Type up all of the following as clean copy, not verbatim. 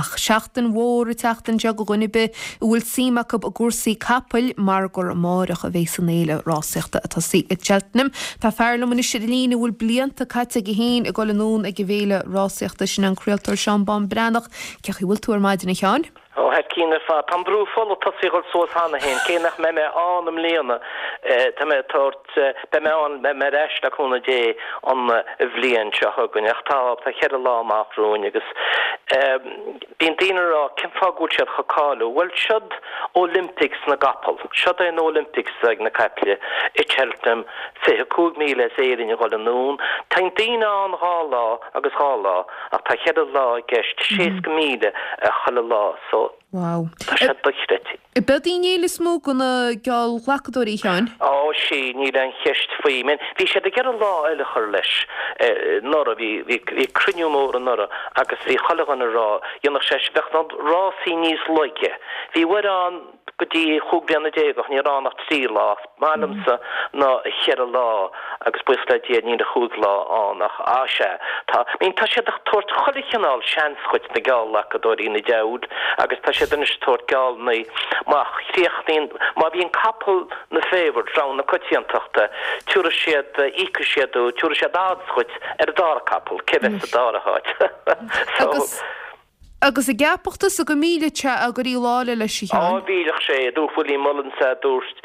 Ach seachtain mhór an tseachtain seo do dhuine ar bith a bhfuil suim acu i gcúrsaí capaill mar gur amáireach a bhéas an fhéile rásaíochta ag tosaí i Cheltenham. Tá fear liom anois ar an líne a bhfuil blianta caite aige féin ag dul anonn ag an bhféile rásaíochta, sin an craoltóir Seán Bán Breathnach. Cén chaoi a bhfuil tú ar maidin a Sheáin? Ó, thar cionn ar fad. Tá an brú fola tosaithe a dhul suas cheana féin, cé nach mbeidh mé ann i mbliana, tá mé ag tabhairt, beidh mé ann, beidh mé ar ais le cúnamh Dé an bhliain seo chugainn, ach tá, tá cheithre lá amach romhainn agus bíonn daoine ag rá cén fáth go bhfuil siad chomh cáiliúil? Bhuel, siod Olympics na gcapall, siod é an Olympics ag na caiple i Cheltenham, 25,000 as Éirinn a dhul anonn, Tá daoine ann dhá lá agus dhá lá. Ach tá cheithre lá i gceist, 60,000 chuile lá, so Wow. tá sé dochreidte. Ab eod í an fhéile is mó do na geallghlacadóirí, a Sheáin? Ó, sea, níl aon cheist faoi. I mean, bhí siad ag iarraidh lá eile a chur leis anuraidh, bhí, bhí, bhí cruinniú mór anuraidh agus bhí chuile dhuine ag rá, dhéanfadh sé, bheadh na rásaí níos laige. Bhí uair ann, go dtí chúig bliana déag ó shin ní raibh ann ach trí lá. Is maith liomsa na cheithre lá agus buíochas le Dia níl ach chúig lá ann ach á sea tá I mean tá siad ag tabhairt chuile chineál seans dhuit na geallghlacadóirí na deabhail agus tá siad anois ag tabhairt geallannaí má chríochnaíonn má bhíonn capall na favourite rogha na coitiantachta tiúrfaidh siad íocfaidh siad tiúrfaidh siad odds dhuit ar an dara capall cé bheas sa dara háit so Agus Agus an gceapfadh tusa go millfeadh sé éirí lá eile leis, a Sheáin? Á, mhillfeadh sé, a dúirt Willie Mullins, a dúirt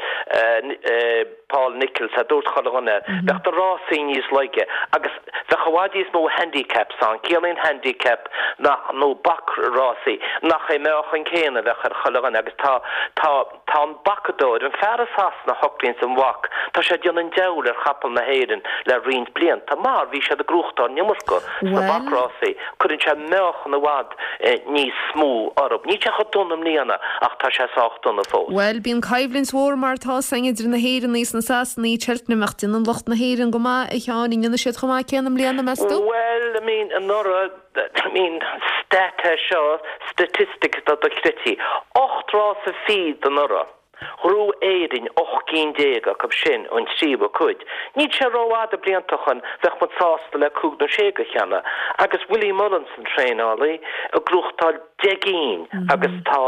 Paul Nicholls, a dúirt chuile dhuine. Bheadh na rásaí níos laige agus bheadh i bhfad níos mó handicaps ann. Ciallaíonn handicap nach, nó bac-rásaí, nach é meáchan céanna a bheadh ar chuile dhuine agus tá, tá, Tá an bacadóir, an fear i Sasana a shocraíonns an bhac, tá sé ag déanamh an diabhail ar chapaill na hÉireann le roinnt blianta, mar bhí siad ag gnóthachtáil an iomarca sna bacrásaí, cuireann sé meáchan i bhfad níos mó orthu. Níl sé chomh dona i mbliana ach tá sé sách dona fós. Bhuel, bíonn coimhlint mhór mar atá 's againn idir na hÉireannaigh is na Sasanaigh i Cheltenham ach déanann lucht na hÉireann go maith, a Sheáin, an ndéanfaidh siad chomh maith céanna i mbliana, meas tú? Bhuel, I mean, anuraidh, I mean, stat é seo, statistic atá dochreidte. Ocht rása fichead anuraidh. Ghnóthaigh Éirinn 18 gcinn acu sin, an tríú cuid. Níl sé rófhada blianta ó shoin, bheadh muid sásta le cúig nó sé go cheana. Agus Willie Mullins an traenálaí, ag gnóthachtáil 10 gcinn agus tá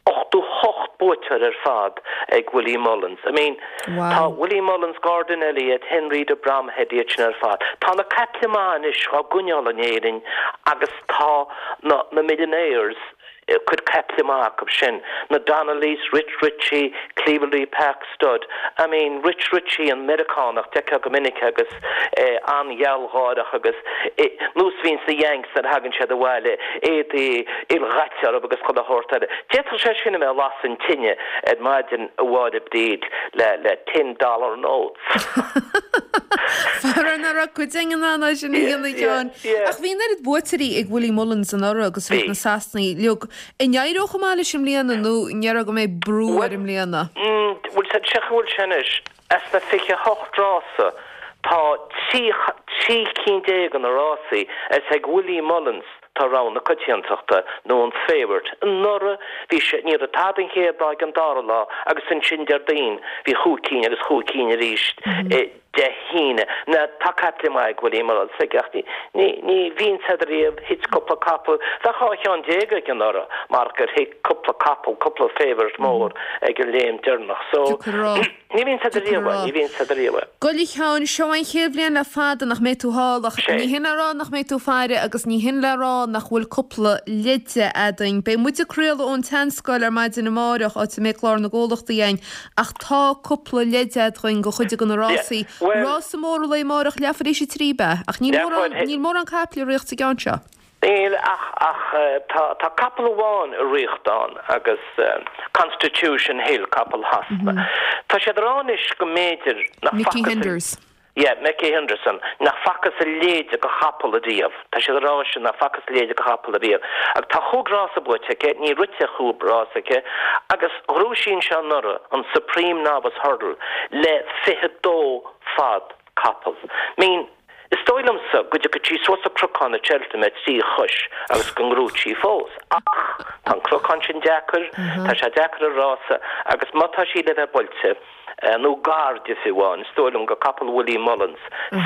88 buaiteoir ar fad ag Willie Mullins. I mean, tá Willie Mullins, Gordon Elliott, Henry de Bromhead, iad sin ar fad. Tá na caiple maithe anois á gcoinneáil in Éirinn agus tá na na millionaires cuid caiple maith acu sin, na Donnellys, Rich Ricci, Cleveley Park Stud. I mean, Rich Ricci, an Meiriceánach, d'fheicfeá go minic agus é an-ghealgháireach agus nós a bhíonn sna Yanks nuair a thagann siad abhaile, éadaí ildaite orthu agus chuile shórt eile. D'fhéadfadh sé sin a bheith ag lasadh an tine ar maidin a Mháire Bríd le le ten dollar notes. Faraor nach raibh cuid againn in ann é sin a dhéanamh, a Sheáin. Ach bhí an oiread buaiteoirí ag Willie Mullins anuraidh agus bhí na Sasanaigh uilig. An éireoidh chomh maith leis i mbliana nó an ndéarfá go mbeidh brú air i mbliana? Bhuel, cén chaoi a bhfuil sé anois. As na 28 rása, tá 13 cinn de na rásaí is ag Willie Mullins tá rogha na coitiantachta nó an favourite. Anuraidh bhí sé, ní raibh tada an chéad lá ag an dara lá agus ansin Déardaoin bhí chúig cinn agus chúig cinn arís Dé hAoine. Now tá caiple maith ag Willie Mullins ach ní, ní, ní bhíonn siad riamh, thit cúpla capall, bheadh 12 cheann aige anuraidh mar gur thit cúpla capall, cúpla favourite mór ag an léim deireanach. So, ní bhíonn siad riamh, ní bhíonn siad riamh. Bhuel a Sheáin, seo an chéad bhliain le fada nach mbeidh tú thall ach ní hin le rá nach mbeidh tú ag faire agus ní hin le rá nach bhfuil cúpla leide againn. Beidh muid ag craoladh ón tSeanscoil ar maidin amáireach, áit a mbeidh clár na gcomhlachtaí againn Ach tá cúpla leid againn do chuid de na rásaí. Rása mór an lae amáireach leathuair théis a trí ab ea? Ach níl mórán, níl mórán caiple ag ritheacht sa gceann seo. Níl ach, ach tá, tá capall amháin ag ritheacht ann agus Constitution Hill, capall Shasana. Tá siad ag rá anois go mb'fhéidir nach Nicky facthas Henderson. Yeah, Nicky Henderson, nach facthas a leithéid de chapall ariamh. Tá siad ag rá sin, nach facthas a leithéid de chapall ariamh. Agus tá chúig rása buaite aici, ní rite ach chúig rása aici, agus ghnóthaigh sí anseo anuraidh, an Supreme Novice Hurdle, le 22 fad capall. I mean, is dóigh liomsa go dtiocfaidh sí suas an cnocán i Cheltenham ar thrí chois agus go ngnóthóidh sí fós. Ach tá an cnocán sin deacair, tá sé deacair an rása, agus má tá sí le bheith buailte, nó gar di fiú amháin, is dóigh liom gur capall Willie Mullins,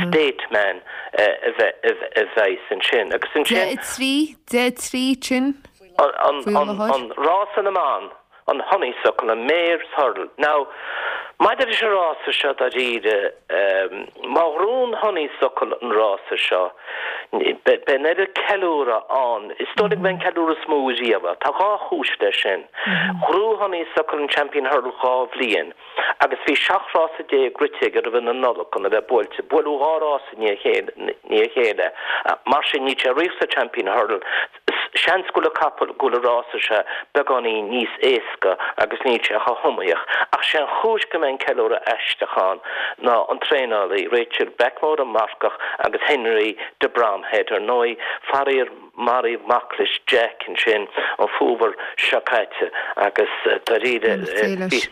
State Man, a bheas ansin. Agus ansin. 10 3, 10 3, sin. An rása na mban, an Honeysuckle, an Mares Hurdle. Now, maidir leis an rása seo dáiríre, má ghnóthaíonn Honeysuckle an rása seo, beidh an oiread ceiliúradh ann, is dóigh liom go mbeidh an ceiliúradh is mó riamh. Tá dhá chúis leis sin. Ghnóthaigh Honeysuckle an Champion Hurdle dhá bhliain agus bhí 17 rása rite aige roimh na Nollag chun a bheith buailte. Buaileadh dhá rás i ndiaidh a chéile. Mar sin, níl sé ag rith sa Champion Hurdle. Seans go bhfuil an capall, go bhfuil an rása seo beagáinín níos éasca agus níl sé chomh hiomaíoch. Ach sé an chúis go mbeidh an ceiliúradh aisteach ann ná an traenálaí, Rachael Blackmore, an marcach, agus Henry de Bromhead, ar ndóigh, faraor maraíodh mac leis, Jack, ansin an fómhar seo caite agus dáiríre bhí.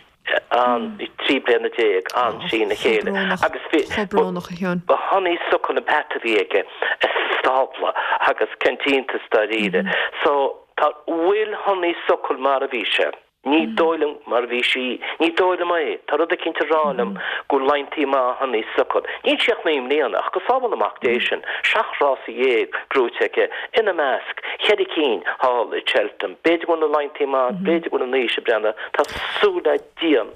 ann, 13 bliana ann trína chéile agus bhí, ba Honeysuckle an peata a bhí aige sa stábla agus cén t-iontas dáiríre. So, tá, bhfuil Honeysuckle mar a bhí sé? Ní dóigh liom mar a bhí sí, ní dóigh liom é, tá rud eicínt ag rá liom go bhfuil laigheantaí maith Honeysuckle. Níl sí ach 9 mbliana ach go sábhála Mac Dé sinn, 17 rása gnóite aici, ina measc, cheithre cinn thall i Cheltenham. B'fhéidir go bhfuil na laigheantaí maith, b'fhéidir go bhfuil an aois ag breathnú, tá súil le Dia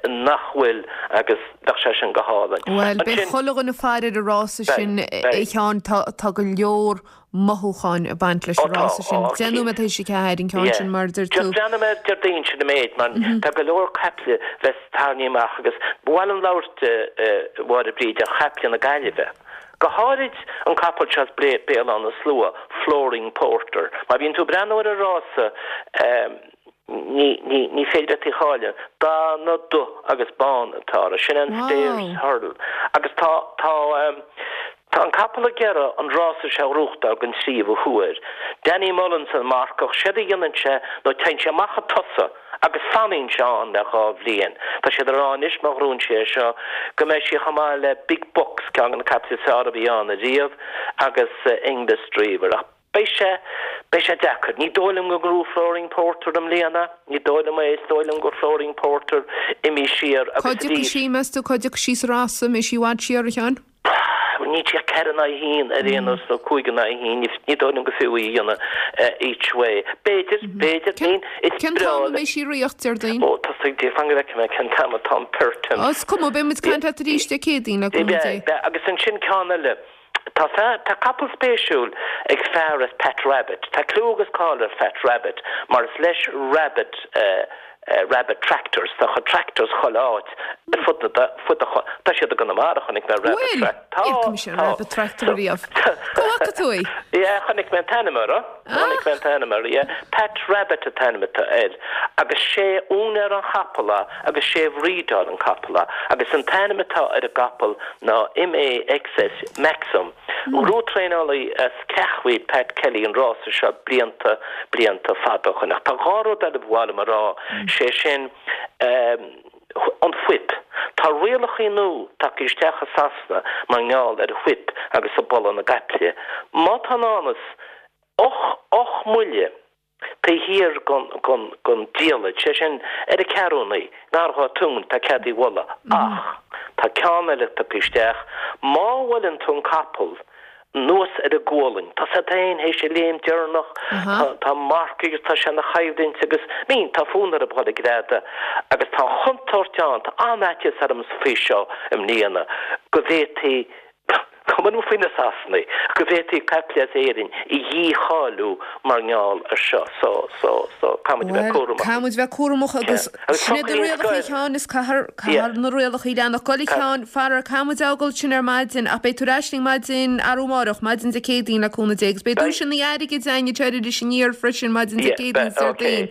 nach bhfuil agus bheadh sé sin go hálainn. Bhuel, beidh chuile dhuine ag faire ar an rása sin, a Sheáin, tá go leor mothúcháin ag baint leis an rása sin. 10 nóiméad tar éis a 4 an ceann sin, mar a deir tú. Just breathnóidh mé ar Déardaoin sin an méid, mar tá go leor caiple bheas tarraingthe amach agus ba mhaith liom labhairt, a Mháire Bríd, ar chaiple na Gaillimhe. Go háirid an capall seo as Béal Átha na Slua, Flooring Porter. Má bhíonn tú ag breathnú ar an rása, ní, ní, ní féidir leat í a chailleadh. Dath na dubh agus bán atá air. Sin an Stayers Hurdle. Agus tá, tá, tá an capall ag iarraidh an rása seo a ghnóthachtáil den tríomhadh huair. Danny Mullins an marcach, séard a dhéanann sé nó téann sé amach chun tosaigh agus fanann sé ann le dhá bhliain. Tá siad ag rá anois má ghnóthaíonn sé é seo go mbeidh sí chomh maith le Big Buck's, ceann de na caiple is fearr a bhí ann ariamh, agus English Dreamer. Ach beidh sé, beidh sé deacair. Ní dóigh liom go ngnóthóidh Flooring Porter i mbliana. Ní dóigh liom é. Is dóigh liom go Flooring Porter imithe siar agus Cá dtiocfaidh arís. sí, meas tú, cá dtiocfaidh sí sa rása? An mbeidh sí i bhfad siar, a Sheáin? Níl sí ach 4 in aghaidh 1 ar aon nós nó 5 in aghaidh 1, ní dóigh liom go fiú í a dhéanamh each way. B'fhéidir, b'fhéidir, I mean, is Cén breá t-am a mbeidh sí ag ritheacht, Déardaoin? Ó, tosaigh, Dé, fan go bhfeicfidh mé cén t-am atá an Pertemps. Ó, is cuma, beidh muid ag caint leat arís Dé Céadaoin, le cúnamh Dé. Beidh, agus ansin ceann eile. Tá fear, tá capall spéisiúil ag fear as Pat Rabbitte. Tá clú agus cáil ar Phat Rabbitte mar is leis Rabbitte, Rabbitte Tractors. Tá a chuid tractors chuile áit ar fud na, fud an, tá siad i gConamara, chonaic mé Rabbitte Bhfuil? Trac, tá, Níor chonaic mise tá. Rabbitte Tractor riamh. Cá bhfaca tú í? Yeah, chonaic mé an t-ainm air. Chonaic mé an t-ainm air, yeah. Pat Rabbitte an t-ainm atá air. Agus sé úinéir an chapaill é agus sé a bhrídeáil an capall é. Agus an t-ainm atá ar an gcapall ná MAXS, Maxim. Ghnóthaigh traenálaí as Ceatharlach, Pat Kelly, an rása seo blianta, blianta fada ó shoin. Ach tá dhá rud eile ba mhaith liom a rá, sé sin, an whip. Tá rialachaí nua tagtha isteach i Sasana mar ngeall ar an whip agus ag bualadh na gcaiple. Má tá in ann is och mbuille taobh thiar gon diallait, sé sin, ar a ceathrúnaí, ngar dhá tóin, tá cead í bhualadh. Ach tá ceann eile tagtha isteach, má bhuaileann tú an capall anuas ar an gualainn, tá sé féin théis a léim deireanach, tá marcaigh agus tá sé ina choimhlint agus, I mean, tá fonn orthu dhul ag greadadh agus tá an chontúirt ann, tá an-fhaitíos orm faoi seo i mbliana, go bhféadfaí Cuma liom faoi na Sasanaigh, go bhféadfaí caiple as Éirinn a dhícháiliú mar ngeall ar seo. So, so, so, caithfidh muid a bheith Bhuel, cúramach. caithfidh muid bheith cúramach agus Agus sin iad na foclaín rialacha a Sheáin, is caithfear, caithfear na rialacha a leanacht. Gabh a Sheáin, faraor, caithfidh muid a fhágáil sin ar maidin ach beidh tú ar ais linn maidin arú amárach, maidin Dé Céadaoin le cúnamh Dé agus beidh duaiseanna airgid againn anseo ar Iris Aniar freisin maidin Dé Céadaoin is Déardaoin.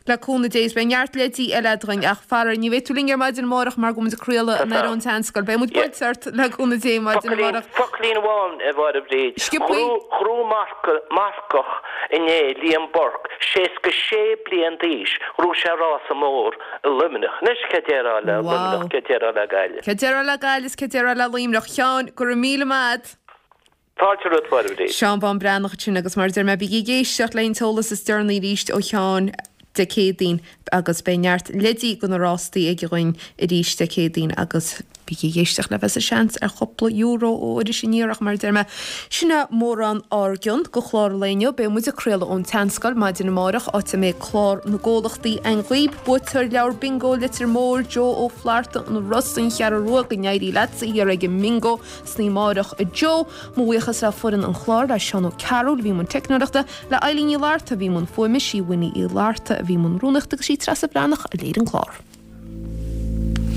Le cúnamh Dé, is beidh neart leidí eile againn, ach faraor, ní bheidh tú linn ar maidin amárach mar go bhfuil muid ag craoladh anoir ón tSeanscoil. Beidh muid buailte ort, le cúnamh Dé, maidin amárach. Focailín amháin, a Mháire Bhríd. Sciobthaí. Ghnóthaigh marcach inné, Liam Burke, 66 bliain d'aois, ghnóthaigh sé rása mór i Luimneach. Anois, cé déarfá le Luimneach, cé déarfá le Gaillimh? Cé déarfá le Gaillimh is cé déarfá le Luimneach. Sheáin, go raibh míle maith agat. Fáilte romhat, a Mháire Bhríd. Seán Bán Breathnach ansin agus mar a deir mé bígí ag éisteacht le an t-eolas is deireanaí arís ó Sheán Dé Céadaoin agus beidh neart leidí go na rástaí aige dhuinn arís Dé Céadaoin agus. Bígí ag éisteacht le bheith sa seans ar chúpla euro ó Iris Aniar ach mar a deir mé, sin é mórán ár gcionn go chlár an lae inniu. Beidh muid ag craoladh ón tSeanscoil maidin amárach, áit a mbeidh clár na gcomhlachtaí againn dhaoib. Buaiteoir leabhar bingo Leitir Móir, Joe Ó Flatharta, An Ros, An Cheathrú Rua, go n-éirí leatsa thiar ag an mbingo san oíche amárach, a Joe. Mo bhuíochas le foireann an chláir, le Seán Ó Cearúil a bhí i mbun teicneoireachta, le Eileen Ní Fhlatharta a bhí i mbun fuaime, sí Winnie Uí Fhlatharta a bhí i mbun rúnaíochta agus sí Treasa Bhreathnach a léirigh an clár.